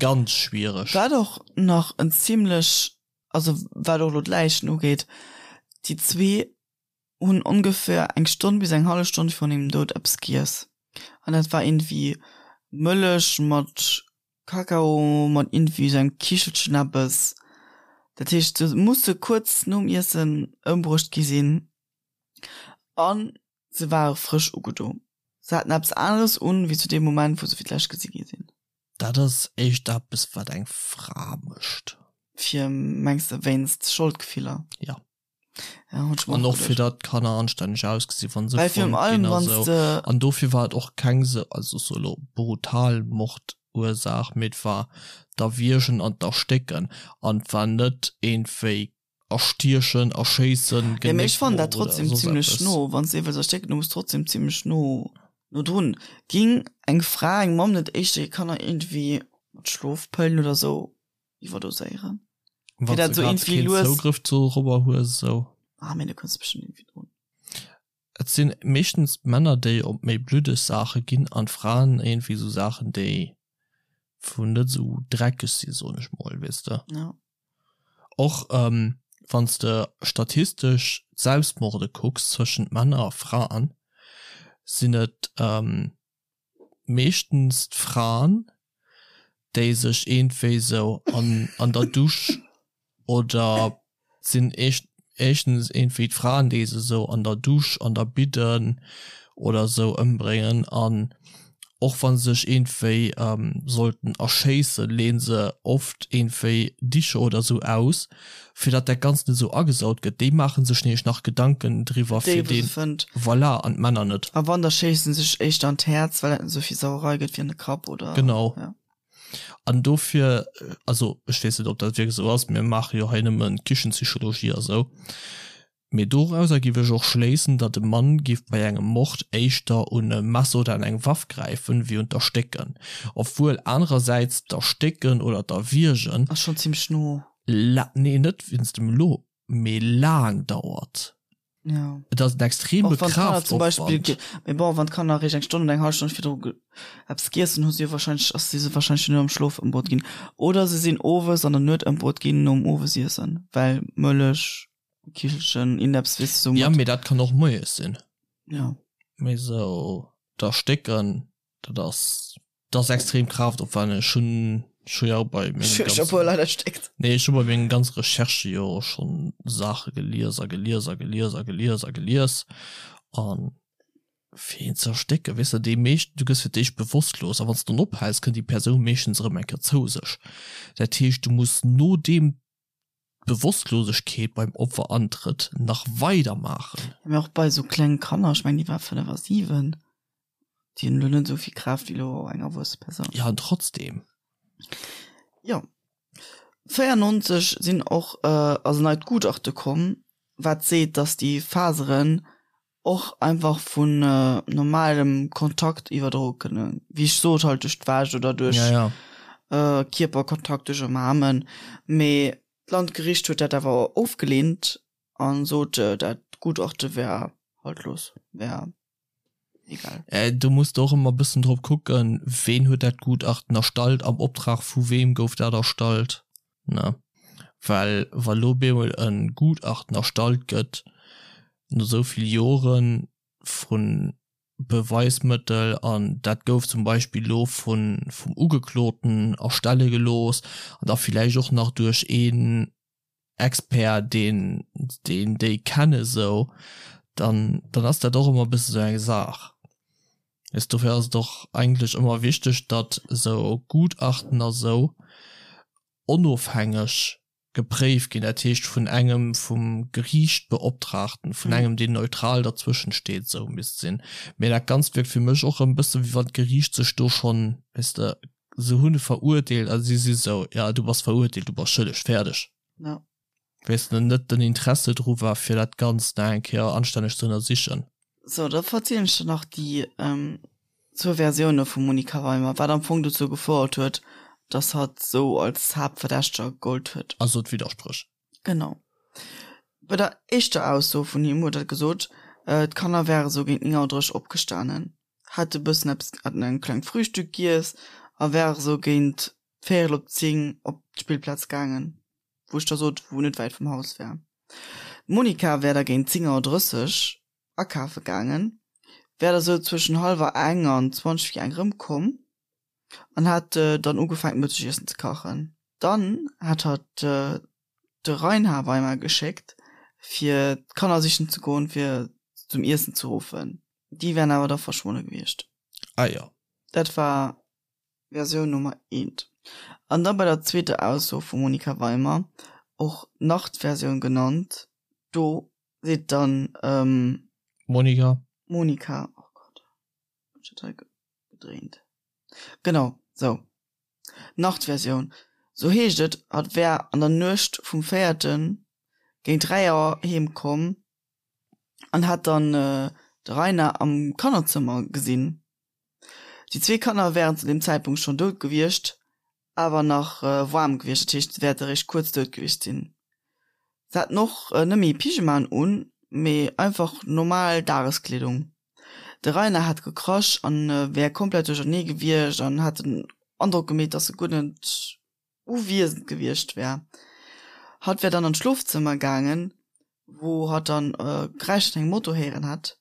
ganz schwiereg. Wat och nach en zimlech, also wat och elo d'Läichen ugeet, déi zwee hunn ongeféier eng Stonn bis eng hallef Stonn virun hirem Doud eppes giess. An dat war iergendwéi Mëllech mat Kakao mat iergendwéi esou engem Kichelchen eppes. Dat heescht, se musse kuerz nom Iessen ëmbruecht gi sinn. An Se ware frësch ugedo. Se haten eppes aneres un, wéi zu deem Moment, wou se fir d'lescht gesi gi sinn. Dat ass éischt eppes, wat eng Fra mécht. Fir, mengs de, wéinst Scholdgefiller? Jo. Ja, hunn ech mer An och och fir geduecht. datt d'Kanner anstänneg ausgesi wann se Well virun fonnt allem, ginn a wann s sou. de. An dofir war et och keng sou, also sou elo brutal Mordursaach, mee et war d'Erwiergen an d'Erstécken an et war net iergendwéi Erstiechen, erschéissen, Ja, mee ech fannen dat Genéckbroch oder trotzdem soss zimlech eppes. no, wann s de ee wëlls erstécken, du muss trotzdem zimlech no no drun. Ging eng Fra, eng Mamm net éischter hir Kanner iergendwéi mat Schlofpëllen oder sou iwwerdoséieren? Fir Wann dat s sou de grad iergendwéi keen lues. Zougrëff dorobber hues, esou. Ah, mee du kënns bestëmmt iergendwéi drun. Et sinn meeschtens d'Männer, déi op méi bluddeg Saache ginn an d'Fraen iergendwéi sou Saachen, déi wou net esou dreckeg sinn, soen ech mol, weess de. Ja. Och wann s de statistesch d'Selbstmorde kucks zwëschent Männer a Fraen, sinn et meeschtens d'Fraen, déi sech iergendwéi sou an der Dusch oder sinn. Éischtens iergendwéi d'Fraen, déi se esou an der Dusch, an der Bidden oder esou ëmbréngen an och wa se sech iergendwéi sollten erschéissen, leeën se oft iergendwéi Dicher oder esou aus, fir datt dat Ganzt net esou agesaut gëtt. Déi maache sech nämlech nach Gedanken driwwer, Déi fir wou se deen, fënnt. voilà, an d'Männer net. A wann, da schéissen se sech éischter an d'Häerz, well dat net esou vill Sauerei gëtt wéi an de Kapp oder, Genau. ja. An dofir, also ech weess net, ob dat wierklech esou ass, mir maache jo hei nëmme Kichenpsychologie a sou, mee dorauser géif ech och schléissen, datt e Mann géif bei engem Mord éischter un e Messer oder an eng Waff gräifen, wéi un d'Erstécken. Obwuel anerersäits d'Erstécken oder d'Erwiergen. Ass schonn zimmlech no. La, nee, net wéinst dem lo, mee laang dauert. Ja. Et ass en extreme Och wann d'Kanner zum Beispill, Kraftaufwand. mee bon, wann d'Kanner eréischt eng Stonn oder eng hallef Stonn virdru eppes giess hunn, hu si jo wahrscheinlech, ass si se wahrscheinlech schon am Schlof ëmbruet ginn. Oder se sinn owes an der Nuet ëmbruet ginn nom Owesiessen, well Mëllech, Kichelchen, iergendeppes, weess de, sou Ja, mat. mee dat kann och moies sinn. Ja. Mee sou d'Erstécken, dat ass. Dat ass extrem kraaftopwenneg. Ech hunn ech hu jo bei mengem Ech hu ganzen puer Leit erstéckt. Nee, ech hu bei mengen ganze Recherchë jo schonn Saache gelies a gelies a gelies a gelies a gelies. An fir een ze erstécken, weess de, déi meescht, du gëss fir d'éischt bewosstlos a wann s de dann ophäls, kënnt déi Persoun meeschtens erëm eng Kéier zou sech. Dat heescht, du muss nodeem d'Bewosstlosegkeet beim Opfer antrëtt, nach weider maachen. Mee och bei esou klenge Kanner, ech mengen déi war 5 a 7, déi hunn elo net esou vill Kraaft wéi elo eng erwuesse Persoun. Jo, an trotzdem. Jo. 94 sinn och, ass en neit Gutachte komm, wat seet, datt déi Faseren och einfach vun normalem Kontakt iwwerdroe kënnen, wéi ech sot, halt duerch d'Wäsch oder duerch ja, ja. Äh, Kierperkontakt, duerch Umarmen. Mee d'Landgericht huet dat awer ofgeleent a sot, dat Gutachte wär haltlos, wär egal. Äh, do muss de och ëmmer e bëssen drop kucken, ween huet dat Gutachten erstallt, am Optrag vu weem gouf dat erstallt, ne? Well wa lo bemol e Gutachten erstallt gëtt, no esou vill Jore vu Beweismëttel, an dat gouf zum Beispill lo vun vum Ugekloten erstelle gelooss an da villäicht och nach duerch een Expert, deen deen déi kenne sou, dann dann ass dat och ëmmer e bësse sou eng Saach. Weess, dofir ass et och eigentlech ëmmer wichteg, datt esou Gutachten a sou onofhängeg gepréift ginn, dat heescht vun engem vum Geriicht Beoptraagten, vun engem deen neutral derzwëschen steet, esou misst sinn. Mee dat Ganzt wierkt fir mech och erëm e bësse wéi wann d'Geriicht sech do schonn, weess de, se hunn e verurteelt a si si sou, ja du bass verurteelt, du bass schëlleg, fäerdeg. Ja. Weess de, net den Interesse dru war fir dat Ganzt nach eng Kéier anstänneg ze ënnersichen. Sou, da verzielen ech der nach déi zwou Versioune vum Monica Weimer, wat am Fong dozou gefouert huet, dass hatt sou als Haaptverdächteger gegollt huet. Also d'Widderspréch. Genau. Bei der éischter Ausso vun him huet hatt gesot, d'Kanner wäre sou géint 9 Auer 30 opgestanen, hätte bëssen eppes, hätten en klengt Frühstück giess a wäre sou géint véierel op 10 op d'Spillplaz gaangen, wou ech der sot, wou net wäit vum Haus wär. D'Monica wär da géint 10 Auer 30 akafe gaangen, wär da sou zwëschen hallwer eng an 20 vir eng rëmkomm an hätt dann ugefaangen d'Mëttegiessen ze kachen. Dann hätt hatt de Reinhard Weimer geschéckt fir d'Kanner sichen ze goen fir se zum Iessen ze ruffen. Déi wären awer da verschwonne gewiescht. Ah jo. Dat war Versioun Nummer eent. An da bei der zweeter Ausso vum Monika Weimer, och Nachtversioun genannt, do seet dann. Monika. Monika, oh Gott, hunn ech dat hei gedréint? Genau, sou, Nachtversioun, sou heescht et, hatt wär an der Nuecht vum véierten géint 3 Auer heem komm an hätt dann de Rainer am Kannerzëmmer gesinn. Déi zwee Kanner wären zu deem Zäitpunkt schonn dout gewiescht, awer nach waarm gewiescht, dat heescht se wäerte réischt kuerz dout gewiescht sinn. Se haten och net méi Pyjamaen un, mee einfach normal Dageskleedung. De Rainer hat gekrasch an wär komplett duerchernee gewiescht an hat den Androck gemeet, dass e guer net uwiesend gewiescht wär. Hatt wär dann an d'Schlofzëmmer gaangen, wou hatt dann Geräischer vun engem Moto héieren hätt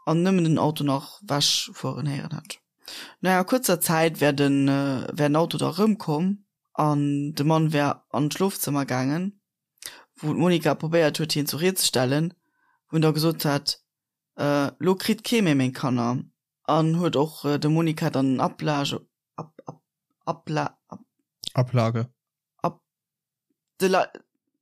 an nëmmen den Auto nach wech fueren héieren hätt. No enger kuerzer Zäit wär den wär den Auto da rëmkomm an de Mann wär an d'Schlofzëmmer gaangen. wou d'Monica probéiert huet, hien zur Ried ze stellen, wou en da gesot hat, Lo kritt kee méi meng Kanner. An huet och dem Monica dann en Ablage, Ab, Ab, Abla, Ab. Ablage. Ab, de La,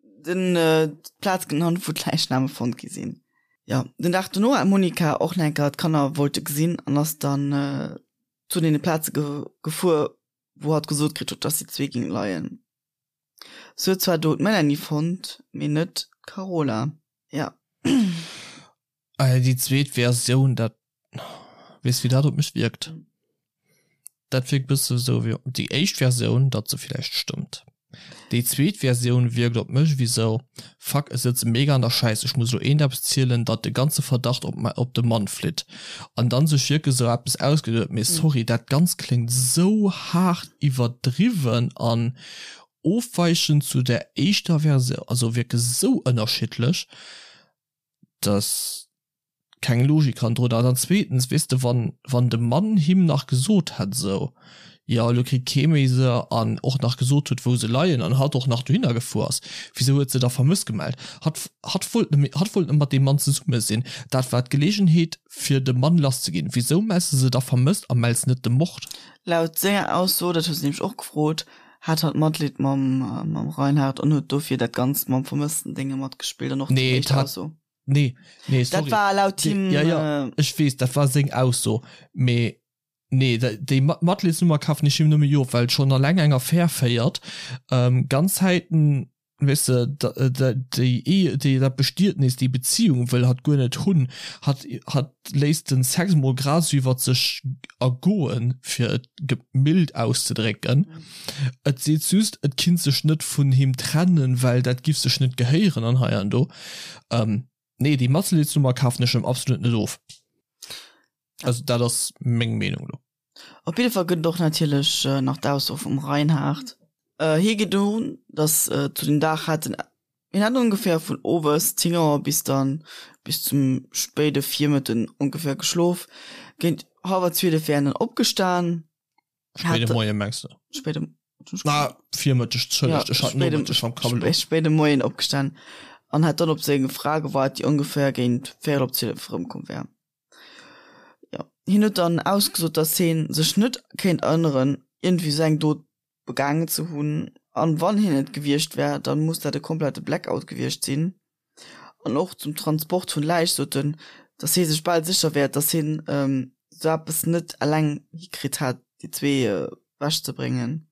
den, d'Plaz genannt, wou d'Läichname fonnt gi sinn. Jo, den Dag dono hat d'Monica och nach eng Kéier d'Kanner wollte gesinn an ass dann zu deene Plaze gefuer, wou hatt gesot kritt huet, dass déi zwee géinge leien. Se huet zwar do d'Melanie fonnt, mee net d'Carola. Ja. Déi zweet Versioun, dat, weess wéi dat op mech wierkt? Dat wierkt bësse sou wéi déi éischt Versioun, datt se villäicht stëmmt. Déi zweet Versioun wierkt op mech wéi sou, Fuck, ech sëtze mega an der Schäiss, ech muss elo eent eppes zielen, datt de ganze Verdacht op op de Mann flitt. An dann sech wierklech sou eppes ausgeduet. Mee sorry, dat Ganzt kléngt sou haart iwwerdriwwen an ofweichend zu der éischter Versioun, also wierklech sou ënnerschiddlech, dass keng Logik hannendrun ass. An zweetens, weess de, wann, wann de Mann him nach gesot hätt esou, jo elo kritt kee méi se, an och nach gesot huet wou se leien, an hatt och nach dohinner gefuer ass, wisou huet se da vermësst gemellt? Hatt, hatt wollt nëmme, hatt wollt nëmme mat deem Mann zesumme sinn, dat war d'Gelegenheet fir de Mann lass ze ginn. Wisou mells de se da vermësst a mells net de Mord? Laut senger Ausso, dat huet se nämlech och gefrot, hat hatt Matleed mam, mam Reinhard an huet dofir dat Ganzt mam vermëssten Dénge matgespillt an och déi éischt Ausso. Nee, nee, sorry. Dat war laut him. Ja, ja, ech weess, dat war seng Ausso. Mee nee, déi Matleedsnummer kafen ech him nëmme jo, well schonn alleng eng Affär féiert, ganz Zäiten, weess de, déi Ehe, déi, dat Bestietnis, déi Beziehung wëll hatt guer net hunn. Hatt, hatt léisst den Sex mol grad esou iwwert sech ergoen, fir et mild auszedrécken. Et seet just, et kinnt sech net vun him trennen, well dat giff sech net gehéieren an hei an do. Ähm, nee, déi Matzelidsnummer kafen ech em absolut net of. Also dat ass meng Meenung lo. Op jidde Fall gëtt et och natierlech nach d'Ausso vum Reinhard. Hie geet un, datt zu dem Dag hat en, hien hat ongeféier vun owes 10 Auer bis dann bis zum spéide Virmëtten ongeféier geschlof. Géint hallwer 12 wär en dann opgestan. Spéide Moien mengs de? Spéide Ah, Virmëtteg, Entschëllegt, ech hat Nomëtteg am Kapp elo. Spéide Moien opgestan an hat dann op seng Fra gewaart, déi ongeféier géint véierel op 12 erëmkomm wär. Jo, hien huet dann ausgesot, datt hien sech net kéint erënneren, iergendwéi esou eng Dot begaangen ze hunn, an wann hien et gewiescht wär, dann muss dat e komplette Blackout gewiescht sinn. An och zum Transport vun Läich sot en, datt hie sech bal sécher wär, datt hien esou eppes net eleng hikritt hätt, déi zwee ewech ze bréngen.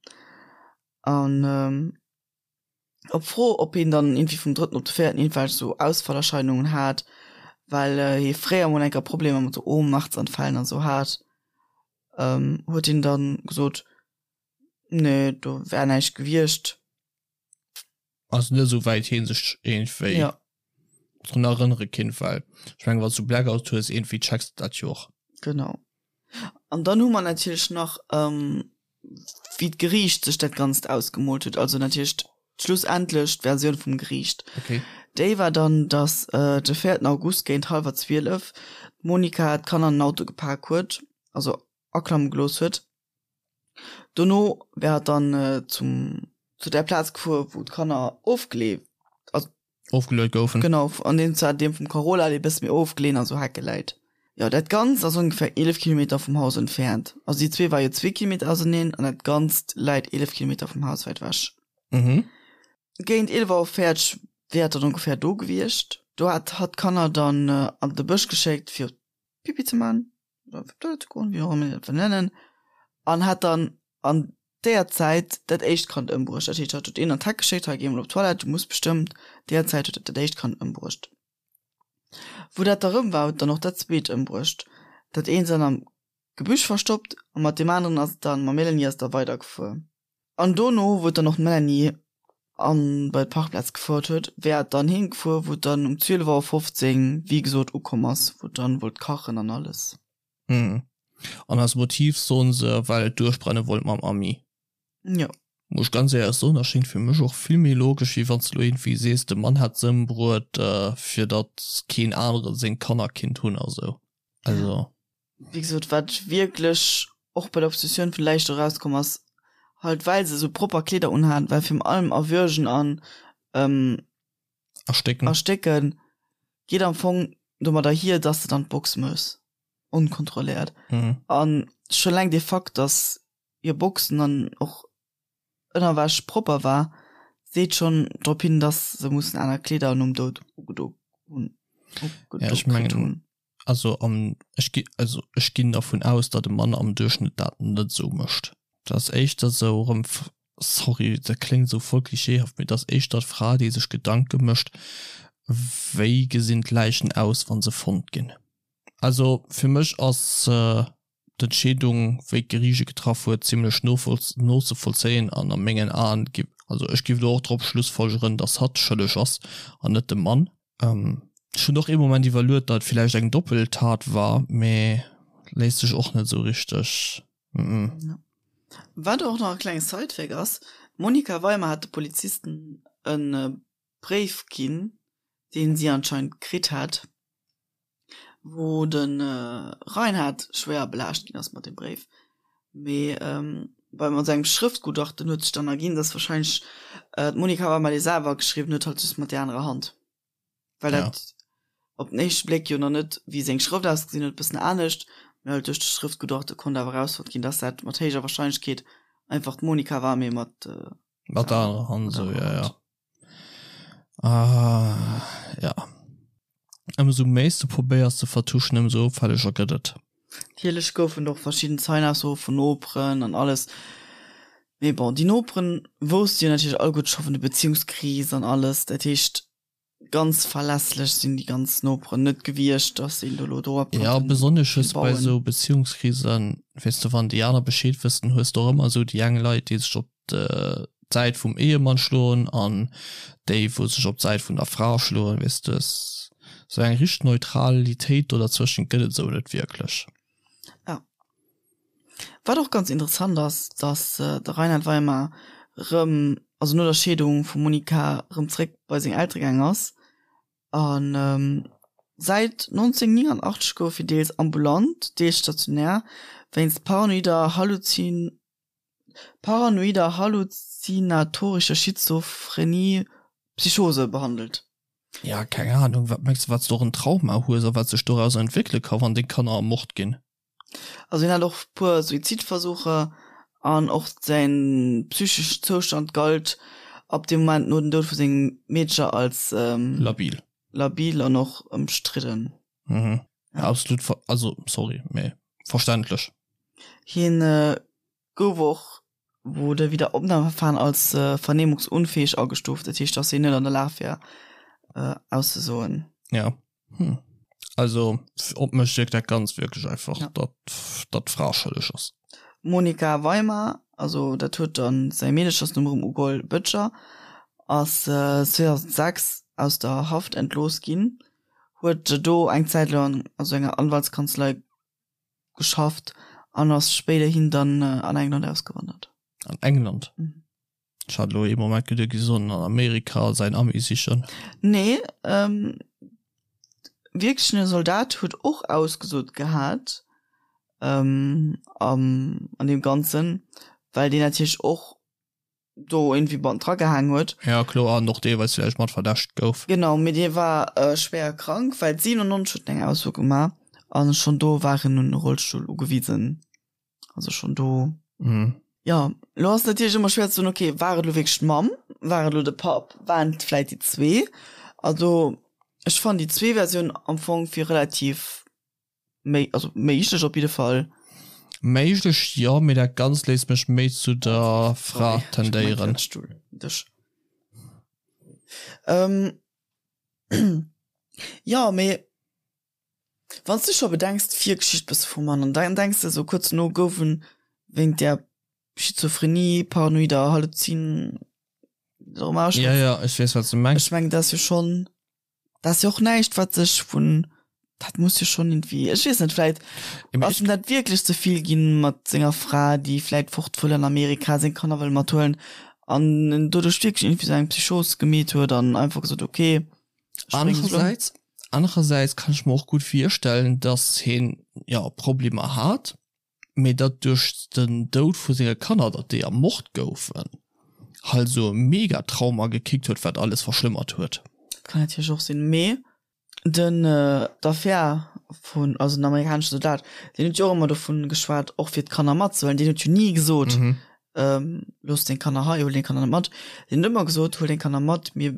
An op Fro, ob hien dann iergendwéi vum drëtten op de véierten iergendwelch esou Ausfallerscheinungen hat, well hie fréier mol eng Kéier Problemer mat esou Ohnmachtsanfällen an esou hat, huet hien dann gesot, Nee, do wär näischt gewiescht. Also net esou wäit hien sech iergendwéi ja. drun erënnere kinnt, well ech mengen, wann s du Blackout hues, iergendwéi checks de dat jo och. Genau. An dann hu mer natierlech nach, ähm, wéi d'Geriicht sech dat Ganzt ausgemoolt huet, also natierlech schlussendlech d'Versioun vum Geriicht. Okay. Déi war dann, dass äh, de 4. August géint hallwer 12 d'Monica d'Kanner an den Auto gepak huet, also aklamme gelooss huet. Dono wär et dann zum zu där Plaz gefuer, wou d'Kanner ofgeleef, also ofgeluet goufen. Genau, an deem zwar deem vum Carola, dee bësse méi ofgeleeën an sou Hecke läit. Jo, dat Ganzt ass ongeféier 11 Kilometer vum Haus entfernt. Also déi zwee war jo zwee Kilometer auserneen an dat Ganzt läit 11 Kilometer vum Haus wäit ewech. Mhm. Géint 11 Auer 40 wär et dann ongeféier do gewiescht. Do hat hatt d'Kanner dann an de Bësch geschéckt fir Pipi ze man. wéi och ëmmer een dat wëll nennen, an hat dann an deeër Zäit dat éischt Kand ëmbruecht. Dat heescht, hatt huet een an d'Heck geschéckt, hei géi emol op d'Toilette, du muss bestëmmt. Deeër Zäit huet et dat éischt Kand ëmbruecht. Wou dat da rëm war, huet dann och dat zweet ëmbruecht. Dat eent dann am Gebüsch verstoppt a mat deem aneren ass et dann, mam Mélanie ass et da weidergefuer. An dono, wou et dann och d'Melanie an bei d'Parkplaz gefouert huet, wär et dann heem gefuer, wou et dann um 12 Auer 15, wéi gesot, ukomm ass, wou et dann wollt kachen an alles. Mhm. An als Motiv soen se, well et duerchbrenne wollt mam Ami. Jo. Muss ech ganz éierlech soen, erschéngt fir mech och vill méi logesch, wéi wann s de lo iergendwéi sees, de Mann hätt se ëmbruet, fir datt keen anere seng Kanner kinnt hunn a sou. Also. Wéi gesot, wat wierklech och bei der Obsessioun vun Läich do rauskomm ass, halt well se sou propper Kleeder unhaten, well virun allem Erwürgen an. Erstécken. Erstécken, geet am Fong domadder hier, dass de dann d'Box mëss, onkontrolléiert. Mhm. An scho eleng dee Fakt, dass hir Boxen an och Ënnerwäsch propper war, seet schonn drop hin, dass se mussen aner Kleeder nom Doud ugedo hunn. Ja, ech mengen, also am, ech gi, also ech ginn dervun aus, datt e Mann am Duerchschnëtt dat net esou mécht. Dat ass éischter esou erëm, sorry, dat kléngt esou voll klischeehaft, mee dat ass éischter d'Fra, déi sech Gedanke mécht, wéi gesinn d'Läichen aus, wa se fonnt ginn. Also fir mech ass d'Entscheedung, wéi d'Geriicht e getraff huet, zimlech nozevollzéien an a mengen Aen, also ech géif elo och drop schlussfolgeren, datt hatt schëlleg ass an net de Mann. Ech hunn och ee Moment iwwerluet, datt et villäicht eng Doppeltat war, mee léisst sech och net esou richteg. Wat och nach e klenge Sidefact ass, D'Monika Weimer hat de Polizisten e Bréif ginn, deen si anscheinend kritt hat, wou de Reinhard schwéier belaascht ginn ass mat deem Bréif. Mee bei mat sengem Schrëftgutachten huet sech dann erginn, dass wahrscheinlech d'Monika Weimer dee selwer geschriwwen huet, halt just mat där anerer Hand. Well dat op den éischte Bléck jo nach net, wéi seng Schrëft ausgesinn huet, e bëssen anescht, mee halt duerch de Schrëftgutachte konnt awer erausfonnt ginn, dass dat mat héijer Wahrscheinlechkeet einfach d'Monika war, mee mat Mat der anerer Hand, esou, jo, jo. Ah, ja. Ëmsou méi s de probéiers ze vertuschen, ëmsou opfälleger gëtt et. Natierlech goufen et och verschidden Zeienaussoe vun Noperen an alles. Mee bon, déi Noperen wousste jo natierlech alleguerte scho vun der Beziehungskris an alles. Dat heescht, ganz verlässlech sinn déi ganz Noperen net gewiescht, dass een do elo dorop Ja, konnten besonnesch hues de bei bauen. esou Beziehungskrisen, weess de, wann déi aner Bescheed wëssen, hues de och ëmmer esou déi eng Leit, déi sech op d'Säit vum Ehemann schloen an déi wou sech op d'Säit vun der Fra schloen, weess de, sou eng richteg Neutralitéit do derzwëschen gëtt et esou net wierklech. Ja. Wat och ganz interessant ass, dass de Reinhard Weimar rëm, also no der Scheedung vum Monika, rëm zréck bei seng Eltere gaang ass an säit 1989 gouf hie deels ambulant, deels stationär wéinst paranoider Halluzin paranoider halluzinatorischer Schizophrenie Psychose behandelt. Ja, keng Ahnung, wat mengs de wat s de och en Trauma hues a wat sech dorauser entwéckele ka wann deng Kanner ermort ginn? Also hien hat och puer Suizidversucher an och säin psycheschen Zoustand galt ab deem Moment no dem Doud vu sengem Meedcher als Labil. labil an och ëmstridden. Mhm. Ja, absolut, also sorry, mee verständlech. Hien gouf och wou de Wiederopnahmeverfahren als vernehmungsunfähig agestuft, dat heescht, dass hien net an der Lag wär auszesoen. Ja. Hm. Also op mech wierkt dat Ganzt wierklech einfach, ja. datt datt d'Fra schëlleg ass. Monika Weimer, also dat huet dann säi Meedechersnumm erëm ugeholl, Böttcher, ass 2006 aus der Haft entlooss ginn, huet do eng Zäit laang also enger Anwaltskanzlei geschafft an ass spéiderhin dann an England ausgewandert. An England? Mhm. Ech hat elo ee Moment geduet, gi soen an Amerika säin Ami sichen. Nee, ähm, wierklech en Soldat huet och ausgesot gehat, ähm, am, an deem Ganzen, well deen natierlech och do irgendwie mat dra gehaang huet. Ja kloer, an och deelweis villäicht mat verdächtegt gouf. Genau, mee dee war schwéier krank, well 97 huet en eng Ausso gemaach an schonn do war en un e Rollstull ugewisen. Also schonn do. Mhm. Jo, lo ass natierlech ëmmer schwéier ze soen, okay, war et lo wierklech d'Mamm, war et lo de Papp, waren et vläit déi zwee? Also ech fannen déi zwee Versiounen am Fong fir relativ Méi, also méiglech op jidde Fall. Méiglech jo, mee dat Ganzt léisst mech méi zu der Fra tendéieren. Dech. Ähm, jo, mee wann s du scho bedenks, d'Virgeschicht bësse vum Mann, an dann denks de esou kuerz dono gouf en wéint där Schizophrenie, paranoider Halluzin, Ja, ja, ech weess wat s de mengs. Ech mengen, dat ass jo schonn. Dat ass jo och näischt, wat sech vun, dat muss jo schonn irgendwie, ech weess net, vläit ass em dat wierklech ze vill ginn mat senger Fra, déi vläit fort wëll an Amerika, seng Kanner wëll mathuelen an en doduerch wierklech irgendwie sou eng Psychos gemeet huet an einfach gesot, ok, ech bréngen se elo ëm. Anerersäits, anerersäits kann ech mer och gutt virstellen, dass hien, jo, Problemer hat, mee datt duerch den Doud vu senge Kanner, datt déi ermort goufen, halt esou e Mega-Trauma gekickt huet, wat alles verschlëmmert huet. Dat kann natierlech och sinn. Mee den, d'Affär vun, also den amerikanesche Soldat, deen huet jo och ëmmer dovun geschwat, och fir d'Kanner matzehuelen. Deen huet jo ni gesot, looss deng Kanner hei, huel deng Kanner net mat. Deen huet ëmmer gesot, huel deng Kanner mat, mir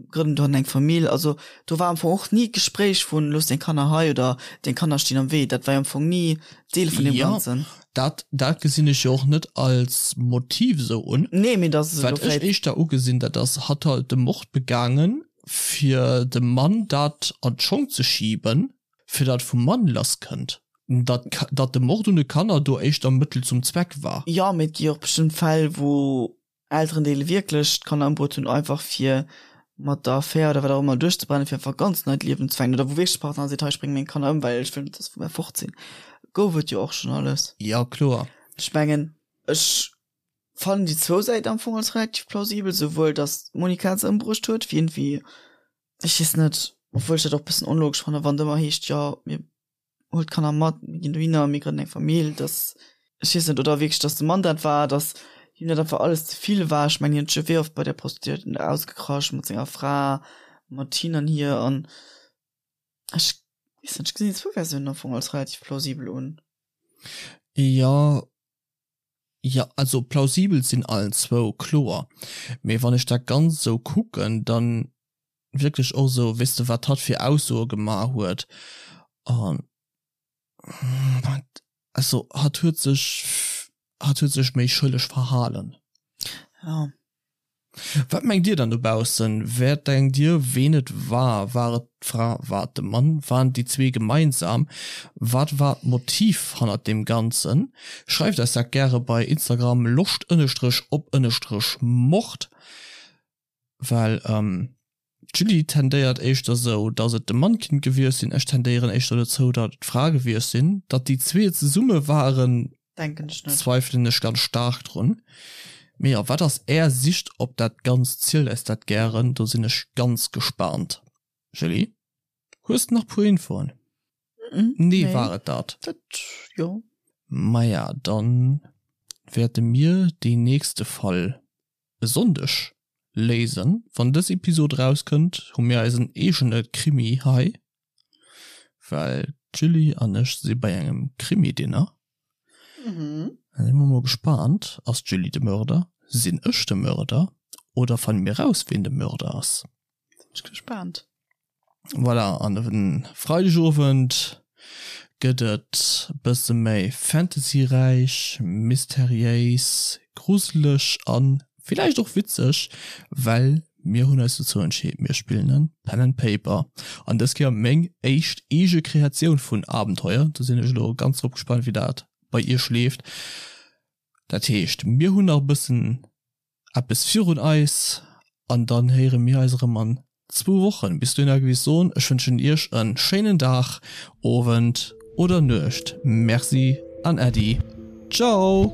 grënnen dohannen eng Famill. Also do war am Fong och ni d'Gespréich vun, looss deng Kanner hei oder deng Kanner stinn am Wee. Dat war jo am Fong ni Deel vun deem Ganzen. Jo, dat, dat gesinn ech jo och net als Motiv esou un. Nee, mee dass elo vläicht. Wat ech éischter ugesinn, dat ass, hatt halt de Mord begaangen, fir dem Mann dat an d'Schong ze schiben, fir datt vum Mann lass kënnt, datt datt de Mord un de Kanner do éischter Mëttel zum Zweck war. Jo, mee et gi jo och bestëmmt Fäll, wou Elterendeele wierklech d'Kanner ëmbruet hunn, einfach fir mat der Affär oder wat och ëmmer duerchzebrennen, fir einfach e ganz neit Liewen ze fänken, oder wou wierklech de Partner seet, hei, ech brénge meng Kanner ëm, well ech wëll net, datt se vu mär fort sinn. Gouf et jo och schonn alles. Jo, kloer. Ech mengen, ech fannen déi zwou Säiten am Fong als relativ plausibel, souwuel datt d'Monica se ëmbruecht huet, wéi iergendwéi Ech weess net, obwuel ech dat och bëssen onlogesch fannen, wann et ëmmer heescht, jo mir huel d'Kanner mat, mir ginn dohinner, mir grënnen eng Famill, dass, ech weess net, oder wierklech, dass de Mann dat war, dass him dat einfach alles ze vill war. Ech mengen, hien huet scho wéi oft bei där Prostituierten do ausgekrasch mat senger Fra, mat hin an hier an ech weess net, ech gesinn déi zwou Versiounen am Fong als relativ plausibel un. Jo, Jo, also plausibel sinn allen zwou, kloer. Mee wann ech dat Ganzt esou kucken, dann wierklech och esou, weess de, wat hatt fir Aussoe gemaach huet an also hatt huet sech, hatt huet sech méi schëlleg verhalen. Jo. Wat mengt dir dann dobaussen? Wer denkt dir ween et war? War et d'Fra? War et de Mann? Waren et déi zwee gemeinsam? Wat war d'Motiv hannert deem Ganzen? Schreift eis dat gäre bei Instagram loscht ënnestrech op ënnestrech mord, well d'Julie tendéiert éischter sou datt et de Mann kinnt gewiescht sinn, ech tendéieren éischter dozou datt et d'Fra gewiescht sinn. Datt déi zwee zesumme waren Denken ech net. Zweifelen ech ganz staark drun. Mee jo, wat ass är Sicht op dat Ganzt? Zielt eis dat gären, do sinn ech ganz gespaant. Julie, hues de nach puer Infoen? Nee, war et dat? Dat jo. Maja, dann wäerte mir deen nächste Fall e Sonndeg léisen. Wann dës Episod erauskënnt, hu mir eisen eegene Krimi hei, well d'Julie an ech si bei engem Krimi-Dinner. Da si mer mol gespaant, Ass d'Julie de Mörder? Sinn ech de Mörder? Oder fanne mir raus, ween de Mörder ass? Sinn ech gespaant. Voilà, an e Freidegowend gëtt et bësse méi fantasyräich, mysteriéis, gruseleg a villäicht och witzeg, well mir hunn eis dozou entscheet, mir spillen e Pen and Paper. An dës Kéier meng éischt eege Kreatioun vun Abenteuer. Do sinn ech elo ganz drop gespaant, wéi dat bei iech leeft. Dat heescht, mir hunn nach e bëssen eppes virun eis an dann héiere mir eis erëm an zwou Wochen. Bis dohinner géif ech soen, ech wënschen iech en schéinen Dag, Owend oder Nuecht. Merci an Äddi. Ciao!